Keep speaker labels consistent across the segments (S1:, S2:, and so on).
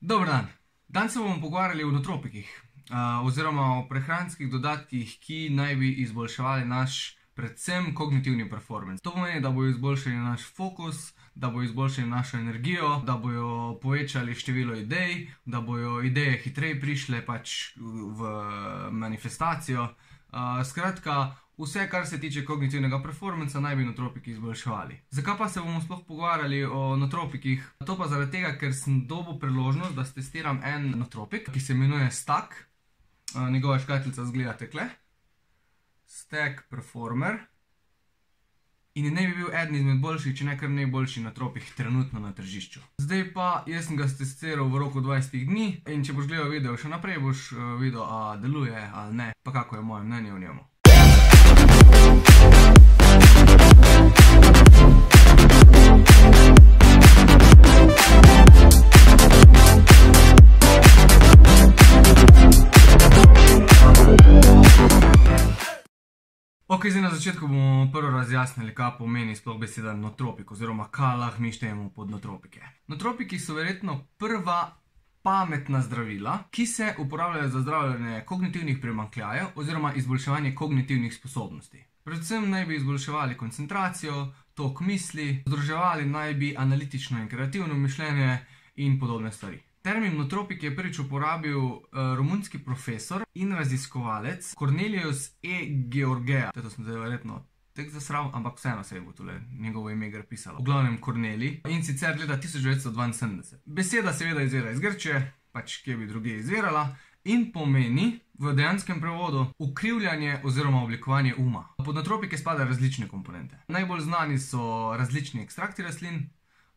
S1: Dober dan. Danes se bomo pogovarjali o nootropikih, oziroma o prehranskih dodatkih, ki naj bi izboljševali naš predvsem kognitivni performance. To pomeni, da bojo izboljšali naš fokus, da bojo izboljšali našo energijo, da bojo povečali število idej, da bojo ideje hitreje prišle pač v manifestacijo. Skratka, vse, kar se tiče kognitivnega performanca, naj bi nootropiki izboljševali. Zakaj pa se bomo sploh pogovarjali o nootropikih? To pa zaradi tega, ker sem dobil priložnost, da testiram en nootropik, ki se imenuje Stack. Njegova škatlica izgleda takle. Stack Performer. In naj bi bil eden izmed boljših, če ne kar najboljši nootropik trenutno na tržišču. Zdaj pa, jaz sem ga testiral v roku 20 dni in če boš gledal video še naprej, boš videl, a deluje ali ne, pa kako je moje mnenje o njemu. Ok, zdaj na začetku bomo prvo razjasnili, kaj pomeni sploh beseda nootropik, oziroma kaj lahko mi štejemo pod nootropike. Nootropiki so verjetno prva pametna zdravila, ki se uporabljajo za zdravljenje kognitivnih primanjkljajev oziroma izboljševanje kognitivnih sposobnosti. Predvsem naj bi izboljševali koncentracijo, tok misli, združevali naj bi analitično in kreativno mišljenje in podobne stvari. Termin nootropik je prvič uporabil romunski profesor in raziskovalec Cornelius E. Georgea. To sem zdaj verjetno tek zasral, ampak vseeno se je bo tole njegovo ime gre pisalo. V glavnem Corneli, in sicer leta 1972. Beseda seveda izvira iz Grčije, pač kje bi drugje izvirala, in pomeni v dejanskem prevodu ukrivljanje oziroma oblikovanje uma. Pod nootropike spadajo različne komponente. Najbolj znani so različni ekstrakti rastlin,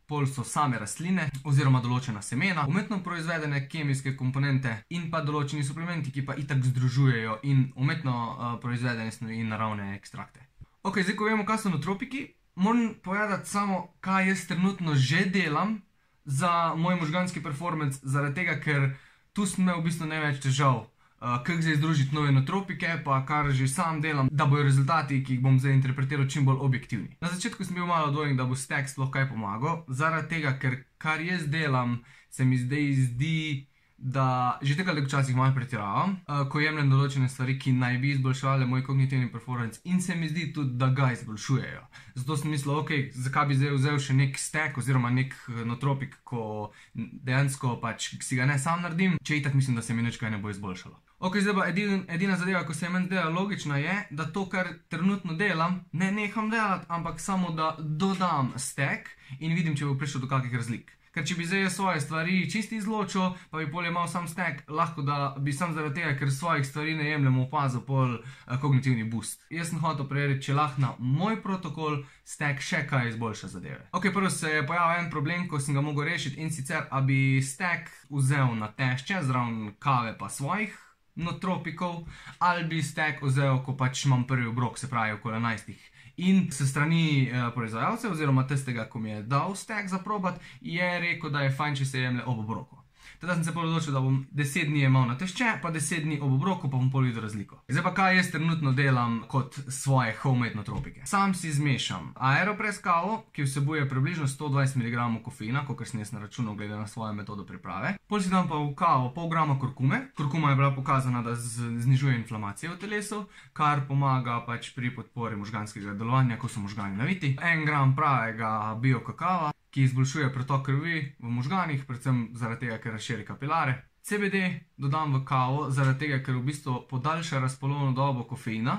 S1: pol so same rastline oziroma določena semena, umetno proizvedene kemijske komponente in pa določeni suplementi, ki pa itak združujejo in umetno proizvedene snovi in naravne ekstrakte. Ok, zdaj ko vemo, kaj so nootropiki, moram povedati samo, kaj jaz trenutno že delam za moj možganski performance, zaradi tega, ker tu sem imel v bistvu največ težav, kako zdaj združiti nove nootropike, pa kar že sam delam, da bojo rezultati, ki jih bom zdaj interpretiral, čim bolj objektivni. Na začetku sem bil malo dvojen, da bo Stack sploh kaj pomagal, zaradi tega, ker kar jaz delam, se mi zdaj zdi, da že tega včasih malo pretiravam, ko jemljem določene stvari, ki naj bi izboljševali moj kognitivni performance, in se mi zdi tudi, da ga izboljšujejo. Zato sem mislil, ok, zakaj bi zdaj vzel še nek Stack oziroma nek nootropik, ko dejansko pač si ga ne sam naredim, če itak mislim, da se mi nič kaj ne bo izboljšalo. Ok, zdaj pa edina zadeva, ko se je meni zdela logična, je, da to, kar trenutno delam, ne neham delati, ampak samo da dodam Stack in vidim, če bo prišel do kakih razlik. Ker če bi zdaj jaz svoje stvari čisti izločil, pa bi pol imel sam Stack, lahko da bi sam zaradi tega, ker svojih stvari ne jemljem, opazil pol kognitivni boost. Jaz sem hotel preveriti, če lahko na moj protokol Stack še kaj izboljša zadeve. Ok, prvo se je pojavil en problem, ko sem ga mogel rešiti, in sicer, a bi Stack vzel na tešče, zraven kave pa svojih nootropikov, ali bi Stack vzel, ko pač imam prvi obrok, se pravi okoli 11. In se strani proizvajalcev, oziroma tistega, ko mi je dal Stack za probat, je rekel, da je fajn, če se jemlje ob obroku. Teda sem se pol odločil, da bom 10 dni jemal na tešče, pa 10 dni ob obroku, pa bom pol videl razliko. Zdaj pa kaj jaz trenutno delam kot svoje homemade nootropike. Sam si zmešam Aeropress kavo, ki vsebuje približno 120 mg kofeina, kakor sem jaz naračunal glede na svojo metodo priprave. Pol si dam pa v kavo pol grama kurkume. Kurkuma je bila pokazana, da znižuje inflamacijo v telesu, kar pomaga pač pri podpori možganskega delovanja, ko so možgani naviti. 1 gram pravega bio kakava, ki izboljšuje pretok krvi v možganih, predvsem zaradi tega, ker razširi kapilare. CBD dodam v kavo, zaradi tega, ker v bistvu podaljša razpolovno dobo kofeina,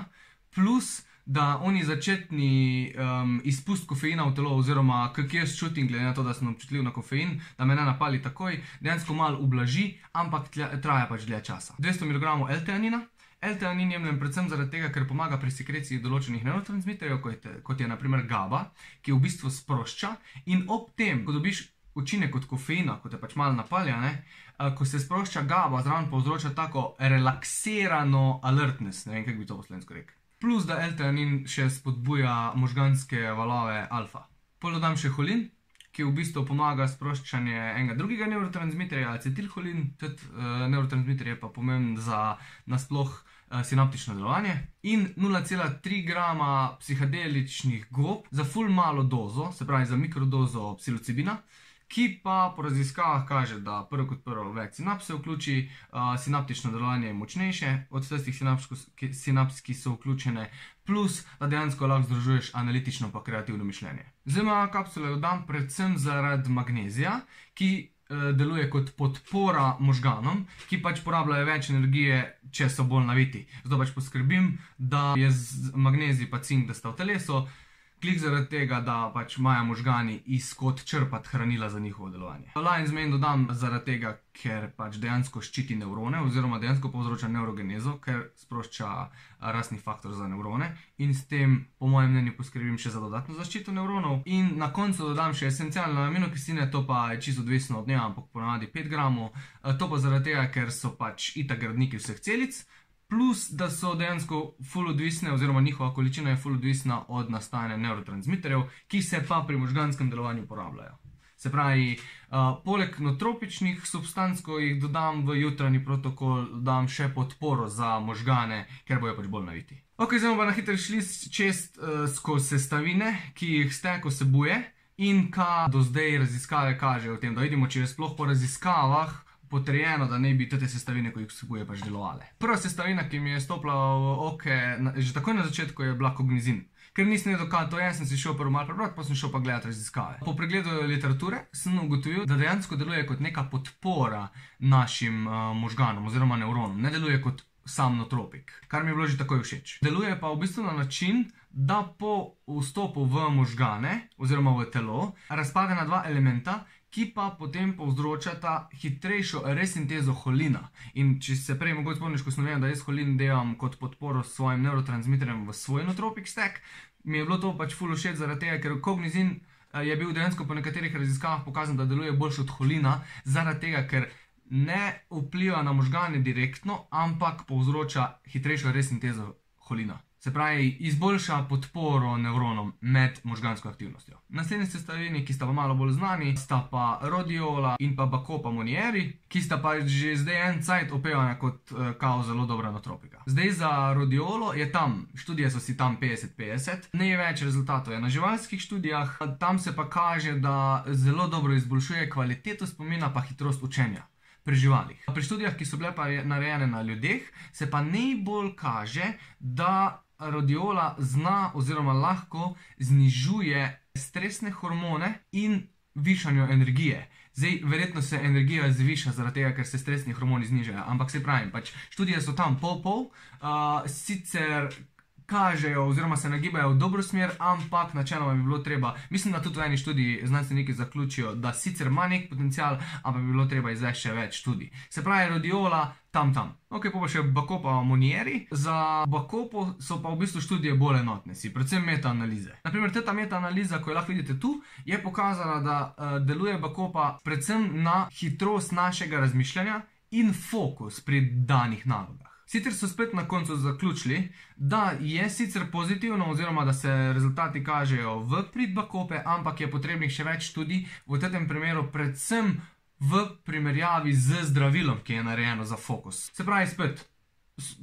S1: plus da oni začetni izpust kofeina v telo, oziroma kak jaz čutim, glede na to, da sem občutljiv na kofein, da me ne napali takoj, dejansko malo ublaži, ampak traja pač dlje časa. 200 mg L-teanina. L-teanin jemljem predvsem zaradi tega, ker pomaga pri sekreciji določenih nevrotransmiterjev, kot je na primer GABA, ki v bistvu sprošča, in ob tem, ko dobiš učinek od kofeina, ko te pač malo napalja, ko se sprošča GABA, zraven povzroča tako relaksirano alertness, ne vem, kako bi to po slovensko rekel. Plus, da L-teanin še spodbuja možganske valove alfa. Pol dodam še holin, ki v bistvu pomaga sproščanje enega drugega nevrotransmiterja, acetilholin, tudi nevrotransmiter je pa pomemben za nasploh sinaptično delovanje, in 0,3 grama psihedeličnih gob za ful malo dozo, se pravi za mikrodozo psilocibina, ki pa po raziskavah kaže, da prvo kot prvo več sinaps se vključi, sinaptično delovanje je močnejše od tistih sinaps, ki so vključene, plus da dejansko lahko združuješ analitično pa kreativno mišljenje. Zdaj kapsule jo dam predvsem zaradi magnezija, ki deluje kot podpora možganom, ki pač porabljajo več energije, če so bolj naviti. Zato pač poskrbim, da je magnezij pa cink, da sta v telesu, klik zaradi tega, da pač imajo možgani iz kod črpati hranila za njihovo delovanje. Lion's Mane dodam zaradi tega, ker pač dejansko ščiti nevrone oziroma dejansko povzroča neurogenezo, ker sprošča rastni faktor za nevrone in s tem, po mojem mnenju, poskrbim še za dodatno zaščito nevronov. In na koncu dodam še esencialne aminokisline, to pa je čisto odvisno od dneva, ampak ponavadi 5 gramov. To pa zaradi tega, ker so pač itak gradniki vseh celic, plus da so dejansko ful odvisne oziroma njihova količina je ful odvisna od nastajanja nevrotransmiterjev, ki se pa pri možganskem delovanju uporabljajo. Se pravi, poleg notropičnih substanc, ko jih dodam v jutranji protokol, dodam še podporo za možgane, ker bojo pač bolj naviti. Ok, zdaj bomo pa na hitro šli čez skozi sestavine, ki jih stek vsebuje in kaj do zdaj raziskave kažejo o tem, da vidimo, če je sploh po raziskavah potrjeno, da ne bi te sestavine, ko jih vsebuje, pač delovale. Prva sestavina, ki mi je stopila v oke, že takoj na začetku je bila kognizin. Ker nisem vedel, kaj to je, sem si šel prvo malo prebrati, pa sem šel pa gledati raziskave. Po pregledu literature sem ugotovil, da dejansko deluje kot neka podpora našim možganom oziroma nevronom. Ne deluje kot sam notropik, kar mi je bilo že takoj všeč. Deluje pa v bistvu na način, da po vstopu v možgane oziroma v telo razpade na dva elementa, ki pa potem povzročata hitrejšo resintezo holina. In če se prej mogoče spomniš, ko sem vedel, da jaz holin delam kot podporo svojim neurotransmiterjem v svoj notropik stek, mi je bilo to pač ful všeč zaradi tega, ker kognizin je bil dejansko po nekaterih raziskavah pokazan, da deluje boljše od holina, zaradi tega, ker ne vpliva na možgane direktno, ampak povzroča hitrejšo resintezo holina. Se pravi, izboljša podporo nevronom med možgansko aktivnostjo. Naslednji sestavini, ki sta pa malo bolj znani, sta pa rodiola in pa bacopa monieri, ki sta pa že zdaj en cajt opevana kot kao zelo dobra notropika. Zdaj za rodiolo je tam, študije so si tam 50-50, največ rezultatov je na živalskih študijah, tam se pa kaže, da zelo dobro izboljšuje kvaliteto spomina pa hitrost učenja pri živalih. Pri študijah, ki so bile pa narejene na ljudeh, se pa najbolj kaže, da rodiola zna oziroma lahko znižuje stresne hormone in višanju energije. Zdaj, verjetno se energija zviša zaradi tega, ker se stresni hormoni znižajo, ampak se pravim, pač študije so tam pol, sicer kažejo oziroma se nagibajo v dobro smer, ampak načeloma bi bilo treba, mislim, da tudi v eni študiji znanstveniki zaključijo, da sicer ima nek potencial, ampak bi bilo treba izvesti še več študij. Se pravi, rodiola tam. Ok, pa še bacopa monieri. Za bacopo so pa v bistvu študije bolj enotne, predvsem metaanalize. Naprimer, ta metaanaliza, ko jo lahko vidite tu, je pokazala, da deluje bacopa predvsem na hitrost našega razmišljanja in fokus pri danih nalogah. Sicer so spet na koncu zaključili, da je sicer pozitivno oziroma da se rezultati kažejo v prid bacope, ampak je potrebnih še več študij, v tem primeru predvsem v primerjavi z zdravilom, ki je narejeno za fokus. Se pravi spet,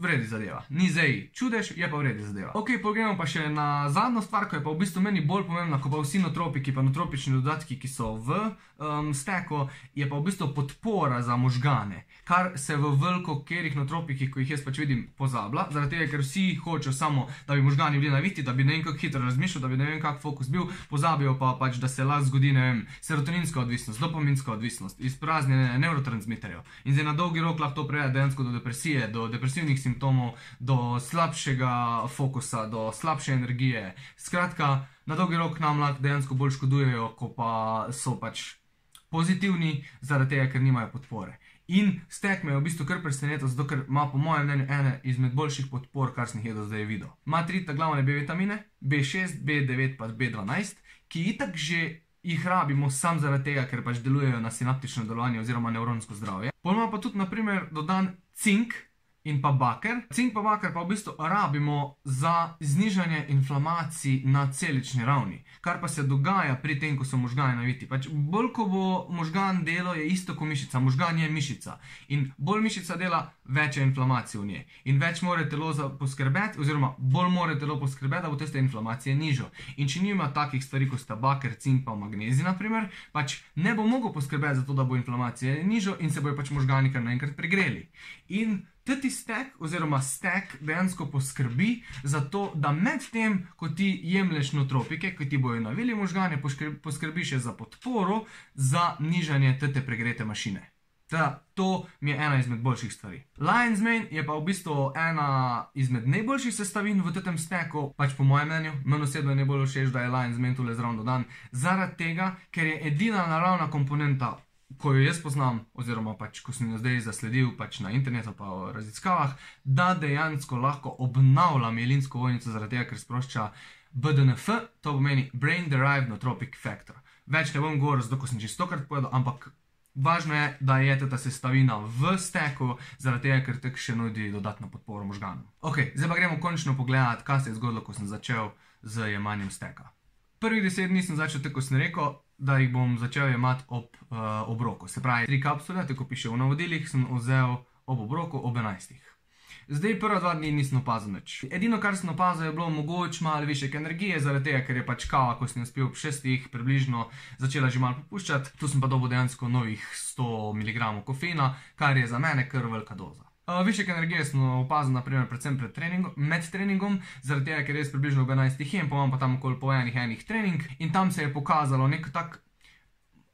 S1: vredi zadeva. Ni zdaj čudež, je pa vredi zadeva. Ok, pogremo pa še na zadnjo stvar, ko je pa v bistvu meni bolj pomembna, ko pa vsi notropiki, pa notropični dodatki, ki so v steku, je pa v bistvu podpora za možgane, kar se v veliko kerih notropikih, ko jih jaz pač vidim, pozablja, zaradi tega, ker vsi hočejo samo, da bi možgani bili naviti, da bi ne vem kako hitro razmišljal, da bi ne vem kak fokus bil, pozabijo pa pač, da se lahko zgodi, ne vem, serotoninska odvisnost, dopaminska odvisnost, izpraznjenje nevrotransmiterjev. In zdaj na dolgi rok lahko to privede dejansko do depresije, do depresivnih simptomov, do slabšega fokusa, do slabše energije. Skratka, na dolgi rok nam lahko dejansko bolj škodujejo, ko pa so pač pozitivni, zaradi tega, ker nimajo podpore. In stek me je v bistvu kar presenetil, zato ker ima po mojem mnenju ene izmed boljših podpor, kar sem jih do zdaj videl. Ima 3 glavne B vitamine, B6, B9 pa B12, ki itak že jih rabimo sam zaradi tega, ker pač delujejo na sinaptično delovanje oziroma nevronsko zdravje. Potem ima pa tudi, naprimer, dodan cink, in pa baker. Cink pa baker pa v bistvu rabimo za znižanje inflamacij na celični ravni, kar pa se dogaja pri tem, ko so možgani naviti. Pač bolj, ko bo možgan delo, je isto kot mišica. Možgan je mišica. In bolj mišica dela, več je inflamacij v njej. In več mora telo poskrbeti, oziroma bolj mora telo poskrbeti, da bo tiste inflamacije nižjo. In če nima takih stvari, kot sta baker, cink pa magnezij, naprimer, pač ne bo mogel poskrbeti za to, da bo inflamacija nižjo in se bojo pač možgani kar naenkrat pregreli. In teti stek oziroma stek dejansko poskrbi za to, da med tem, ko ti jemlješ nootropike, ko ti bojo navili možgane, poskrbi še za podporo, za nižanje tete pregrete mašine. To mi je ena izmed boljših stvari. Lion's Mane je pa v bistvu ena izmed najboljših sestavin v tem steku, pač po mojem mnenju. Meni osebno je najbolj všeč, da je Lion's Mane tule zraven dodan, zaradi tega, ker je edina naravna komponenta, ko jo jaz poznam, oziroma pač, ko sem jo zdaj zasledil pač na internetu pa v raziskavah, da dejansko lahko obnavlja mielinsko ovojnico zaradi tega, ker sprošča BDNF, to pomeni Brain Derived Nootropic Factor. Več ne bom govoril, zato ko sem čistokrat povedal, ampak važno je, da je ta sestavina v steku, zaradi tega, ker tek še nudi dodatno podporo možganom. Ok, zdaj pa gremo končno pogledati, kaj se je zgodilo, ko sem začel z jemanjem steka. Prvih 10 dni sem začel tako, ko sem rekel, da jih bom začel jemati ob obroku. Se pravi, 3 kapsule, tako piše v navodilih, sem vzel ob obroku ob 11. Zdaj prva 2 dni nisem opazil nič. Edino, kar sem opazil, je bilo mogoče malo višek energije, zaradi tega, ker je pač kava, ko sem jo spil ob 6 približno, začela že malo popuščati. Tu sem pa dobil dejansko novih 100 mg kofeina, kar je za mene kar velika doza. Višek energije sem opazil, naprimer, predvsem med treningom, zaradi tega, ker je približno ob 11 jem, pa imam pa tam okoli po enih trening in tam se je pokazalo nek tak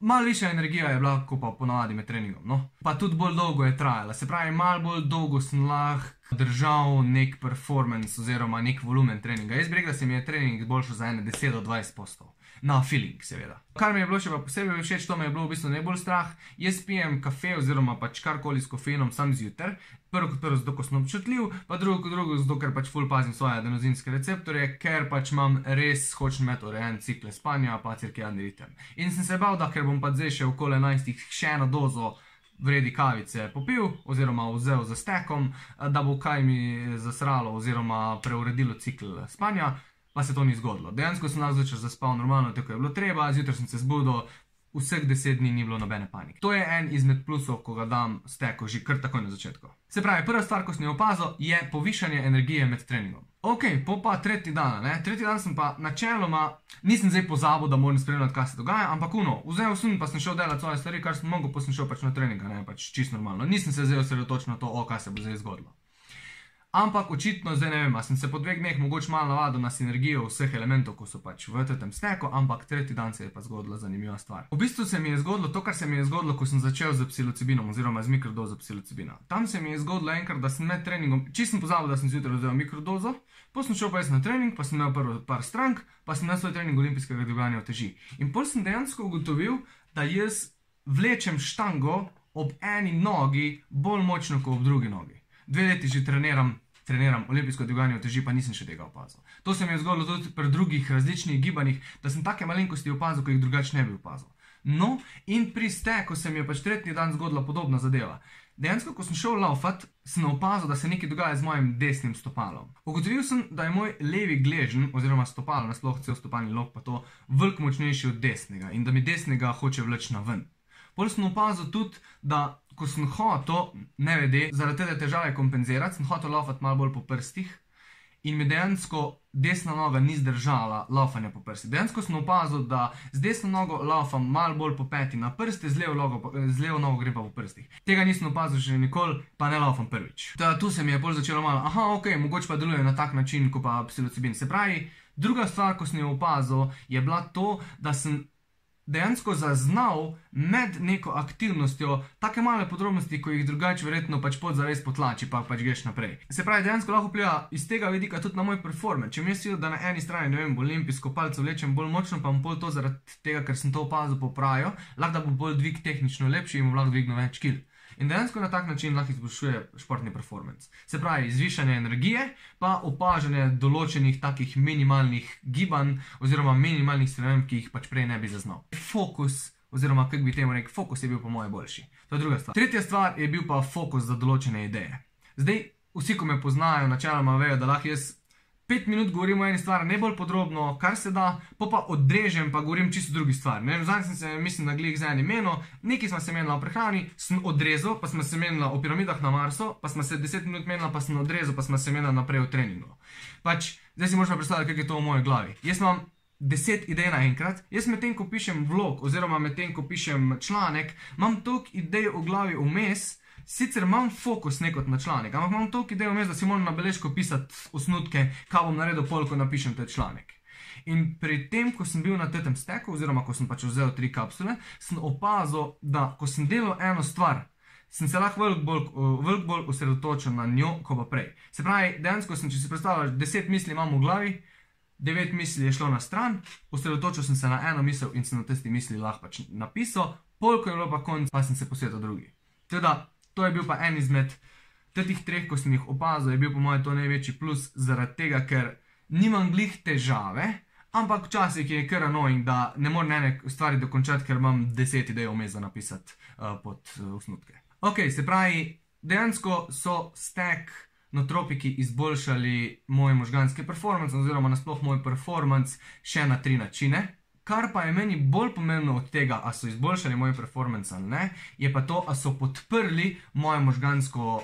S1: malo višja energija je bila, kot pa ponavadi med treningom, no. Pa tudi bolj dolgo je trajala, se pravi, malo bolj dolgo sem lahko držal nek performance oziroma nek volumen treninga. Jaz bi rekel, da se mi je trening izboljšal za 10 do 20%. Na feeling, seveda. Kar mi je bilo še pa posebej všeč, to me je bilo v bistvu najbolj strah. Jaz pijem kafe oziroma pač karkoli s kofeinom sam zjutraj. Prvo kot prvo zato, ko sem občutljiv, pa drugo kot drugo zato, ker pač ful pazim svoje adenozinske receptorje, ker pač imam res hočem imeti urejen cikle spanja pa cirkadiani ritem. In sem se bal, da ker bom pa zdaj še okoli 11 še eno dozo vredi kavice popil oziroma vzel za stekom, da bo kaj mi zasralo oziroma preuredilo cikl spanja. Pa se to ni zgodilo. Dejansko sem lahko začel zaspal normalno, tako je bilo treba, zjutraj sem se zbudil, vseh 10 dni ni bilo nobene panike. To je en izmed plusov, ko ga dam steku že kar takoj na začetku. Se pravi, prva stvar, ko sem jo opazil, je povišanje energije med treningom. Ok, pa tretji dan, ne? Tretji dan sem pa načeloma, nisem zdaj pozabil, da moram spremljati, kaj se dogaja, ampak vzel sem pa sem šel delati svoje stvari, kar sem mogel, pa sem šel pač na treninga, ne, pač čisto normalno. Nisem se zdaj osredotočil na to, kaj se bo zdaj zgodilo. Ampak očitno, zdaj ne vem, a sem se po 2 dneh mogoče malo navadil na sinergijo vseh elementov, ko so pač v tem steku, ampak tretji dan se je pa zgodila zanimiva stvar. V bistvu se mi je zgodilo to, kar se mi je zgodilo, ko sem začel z psilocibinom oziroma z mikrodozo psilocibina. Tam se mi je zgodilo enkrat, da sem med treningom, čisto sem pozabil, da sem zjutraj vzel mikrodozo, potem sem šel pa jaz na trening, pa sem imel prvo par strank, pa sem imel svoj trening olimpijskega dviganja uteži. In potem sem dejansko ugotovil, da jaz vlečem štango ob eni nogi bolj močno kot ob drugi nogi. 2 leti že treniram olimpijsko dviganje uteži, pa nisem še tega opazil. To se mi je zgodilo tudi pri drugih različnih gibanjih, da sem take malenkosti opazil, ko jih drugače ne bi opazil. No, in pri steku se mi je pač tretji dan zgodila podobna zadeva. Dejansko, ko sem šel laufat, sem opazil, da se nekaj dogaja z mojim desnim stopalom. Ugotovil sem, da je moj levi gleženj, oziroma stopalo, nasploh cel stopalni lok pa to, veliko močnejši od desnega in da mi desnega hoče vleči na ven. Potem sem opazil tudi, da ko sem hotel, nevede, zaradi te težave kompenzirati, sem hotel laufati malo bolj po prstih in mi dejansko desna noga ni zdržala laufanja po prstih. Dejansko sem opazil, da z desno nogo laufam malo bolj po peti na prste, z levo nogo grem pa po prstih. Tega nisem opazil še nikoli, pa ne laufam prvič. Tu se mi je bolj začelo malo, ok, mogoče pa deluje na tak način, kot pa psilocibin. Se pravi, druga stvar, ko sem jo opazil, je bila to, da sem dejansko zaznal med neko aktivnostjo take male podrobnosti, ko jih drugače verjetno pač podzavest potlači, pa pač greš naprej. Se pravi, dejansko lahko vpliva iz tega vidika tudi na moj performance. Če mi je da na eni strani, ne vem, olimpijsko palico vlečem bolj močno, pa bom pol to zaradi tega, ker sem to opazil, popravil, lahko da bo bolj dvig tehnično lepši in bom lahko dvignil več kil. In dejansko na tak način lahko izboljšuje športni performance. Se pravi, zvišanje energije, pa opažanje določenih takih minimalnih gibanj oziroma minimalnih sprememb, ki jih pač prej ne bi zaznal. Fokus, oziroma kako bi temu rekel, fokus je bil po moje boljši. To je druga stvar. Tretja stvar je bil pa fokus za določene ideje. Zdaj, vsi, ko me poznajo, načeloma vejo, da lahko jaz 5 minut govorim o eni stvari najbolj podrobno, kar se da, pa odrežem, pa govorim čisto drugi stvari. Zadnjič sem se, mislim, na glih z enim menil, nekaj smo se menila o prehrani, sem odrezal, pa smo se menila o piramidah na Marsu, pa smo se 10 minut menila, pa sem odrezal, pa smo se menila naprej v treningu. Zdaj si možno predstavljati, kako je to v moji glavi. Jaz imam 10 idej naenkrat, jaz medtem, ko pišem vlog, oziroma medtem, ko pišem članek, imam toliko idej v glavi vmes. Sicer imam fokus nekot na članek, ampak imam toliko idej vmes, da si moram na beležko pisati osnutke, kaj bom naredil pol, ko napišem ta članek. In pri tem, ko sem bil na tem steku, oziroma ko sem pač vzel 3 kapsule, sem opazil, da ko sem delal eno stvar, sem se lahko veliko bolj osredotočil na njo, ko pa prej. Se pravi, dejansko sem, če si predstavljaš, 10 misli imam v glavi, 9 misli je šlo na stran, osredotočil sem se na eno misel in sem na tisti misli lahko pač napisal, pol, ko je bilo pa konc, pa sem se posvetil drugi. Teda, to je bil pa en izmed teh 3, ko sem jih opazil, je bil po mojem to največji plus, zaradi tega, ker nimam glih težave, ampak včasih je kar annoying, da ne morem ene stvari dokončati, ker imam 10 idej vmes za napisati pod osnutke. Ok, se pravi, dejansko so stek notropiki izboljšali moj možganski performance, oziroma nasploh moj performance še na 3 načine. Kar pa je meni bolj pomembno od tega, a so izboljšali moj performance ali ne, je pa to, a so podprli moje možgansko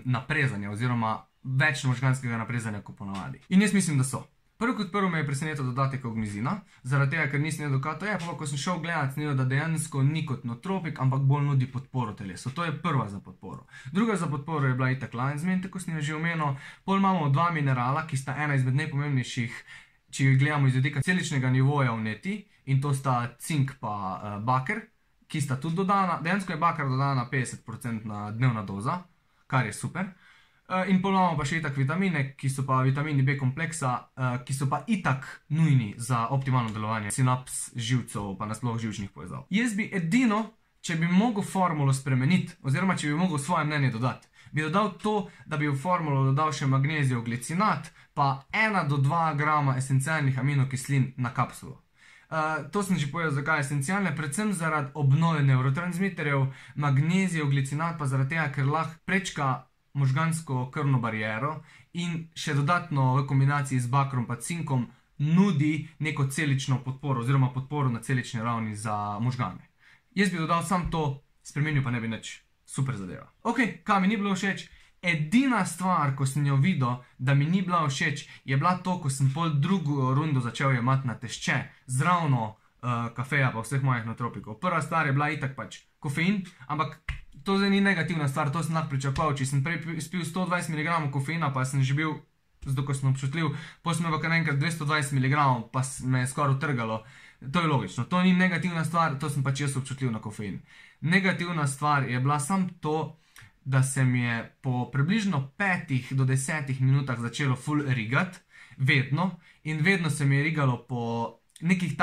S1: naprezanje, oziroma več možganskega naprezanja, kot ponavadi. In jaz mislim, da so. Prvo kot prvo me je presenetil dodatek ognjezina, zaradi tega, ker nisem vedel, kaj to je, pa ko sem šel gledat, sem videl, da dejansko ni kot notropik, ampak bolj nudi podporo telesu. To je prva za podporo. Druga za podporo je bila itak Lion's Mane, tako sem jo že omenil. Pol imamo 2 minerala, ki sta ena izmed najpomembnejših, če jih gledamo iz vidika celičnega nivoja vneti, in to sta cink pa baker, ki sta tudi dodana. Dejansko je baker dodana 50% dnevna doza, kar je super. In pol imamo pa še itak vitamine, ki so pa vitamini B kompleksa, ki so pa itak nujni za optimalno delovanje sinaps, živcev, pa nasploh živčnih povezav. Jaz bi edino, če bi mogel formulo spremeniti, oziroma če bi mogel svoje mnenje dodati, bi dodal to, da bi v formulo dodal še magnezijev glicinat, pa 1 do 2 grama esencialnih aminokislin na kapsulo. To sem že povedal, zakaj je esencialne, predvsem zaradi obnove neurotransmiterjev, magnezijev glicinat pa zaradi tega, ker lahko prečka možgansko krvno bariero in še dodatno v kombinaciji z bakrom pa cinkom nudi neko celično podporo, oziroma podporo na celični ravni za možgane. Jaz bi dodal sam to, spremenil pa ne bi nič. Super zadeva. Ok, kaj mi ni bilo všeč? Edina stvar, ko sem jo videl, da mi ni bila všeč, je bila to, ko sem pol drugo rundo začel jemati na tešče, zravno kafeja pa vseh mojih notropikov. Prva stvar je bila itak pač kofein, ampak to zdaj ni negativna stvar, to sem lahko pričakoval. Če sem prej spil 120 mg kofeina, pa sem že bil, zato ko sem občutljiv, potem sem pa kar enkrat 220 mg, pa me je skoraj utrgalo. To je logično, to ni negativna stvar, to sem pač jaz občutljiv na kofein. Negativna stvar je bila sam to, da se mi je po približno 5 do 10 minutah začelo ful rigati, vedno, in vedno se mi je rigalo po nekih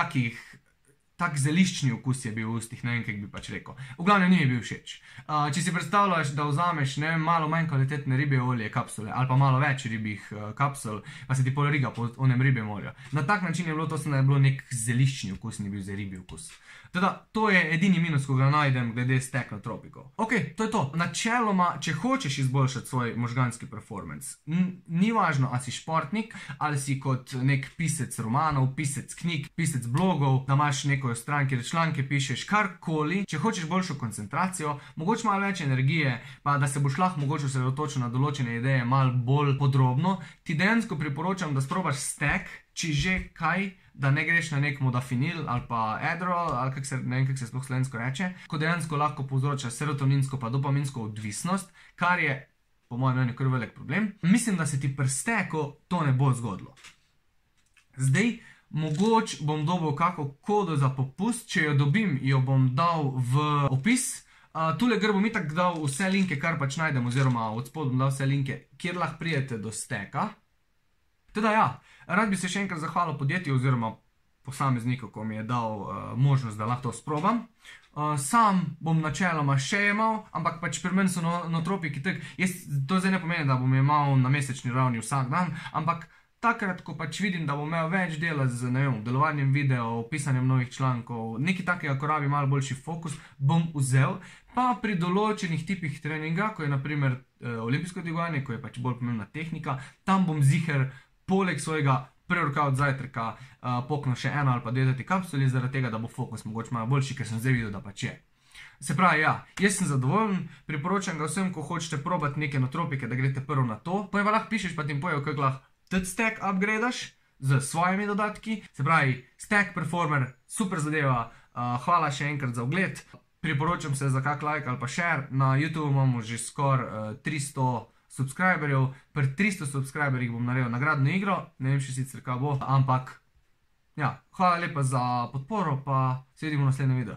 S1: tak zeliščni okus je bil v ustih, ne vem, kaj bi pač rekel. V glavnem ni mi bil všeč. Če si predstavljaš, da vzameš, ne vem, malo manj kvalitetne ribje olje kapsule, ali pa malo več ribjih kapsul, pa se ti pol riga po onem ribjem olju. Na tak način je bilo to, da je bilo nek zeliščni okus, ni bil za ribji okus. Teda, to je edini minus, ko ga najdem glede stek notropikov. Ok, to je to. Načeloma, če hočeš izboljšati svoj možganski performance, ni važno, ali si športnik, ali si kot nek pisec romanov, pisec knjig, pisec blogov, da imaš neko stran, kjer članke pišeš, karkoli. Če hočeš boljšo koncentracijo, mogoče malo več energije, pa da se boš lahko mogoče osredotočil na določene ideje malo bolj podrobno, ti dejansko priporočam, da sprobaš stek, če že kaj, da ne greš na nek modafinil ali pa Adderall, ali ne vem, kako se sploh slovensko reče, ko dejansko lahko povzroča serotoninsko pa dopaminsko odvisnost, kar je po mojem mnenju kar velik problem. Mislim, da se ti pri steku to ne bo zgodilo. Zdaj, mogoče bom dobil kako kodo za popust, če jo dobim, jo bom dal v opis. Tule gor bom itak dal vse linke, kar pač najdem, oziroma od spod bom dal vse linke, kjer lahko pridete do steka. Teda ja, rad bi se še enkrat zahvalil podjetju oziroma posamezniku, ko mi je dal možnost, da lahko to sprobam. Sam bom načeloma še jemal, ampak pač pri meni so notropiki tak, to zdaj ne pomeni, da bom jemal na mesečni ravni vsak dan, ampak takrat, ko pač vidim, da bom imel več dela z, ne vem, delovanjem videov, pisanjem novih člankov, nekaj takega, ko rabi malo boljši fokus, bom vzel, pa pri določenih tipih treninga, ko je naprimer olimpijsko dvigovanje, ko je pač bolj pomembna tehnika, tam bom ziher poleg svojega pre-workout zajtrka poknil še eno ali pa dve teti kapsuli, zaradi tega, da bo fokus mogoče malo boljši, ker sem zdaj videl, da pač je. Se pravi, ja, jaz sem zadovoljen, priporočam ga vsem, ko hočete probati neke notropike, da greste prvo na to, pa lahko pišeš, pa ti jim pojejo, kako lahko tudi stack upgradaš z svojimi dodatki. Se pravi, Stack Performer, super zadeva, hvala še enkrat za ogled. Priporočam se za kak like ali pa share, na YouTube imamo že skoraj 300 subscriberjev, pri 300 subscriberjih bom naredil nagradno igro, ne vem še sicer kaj bo, ampak ja, hvala lepa za podporo, pa se vidimo v naslednjem videu.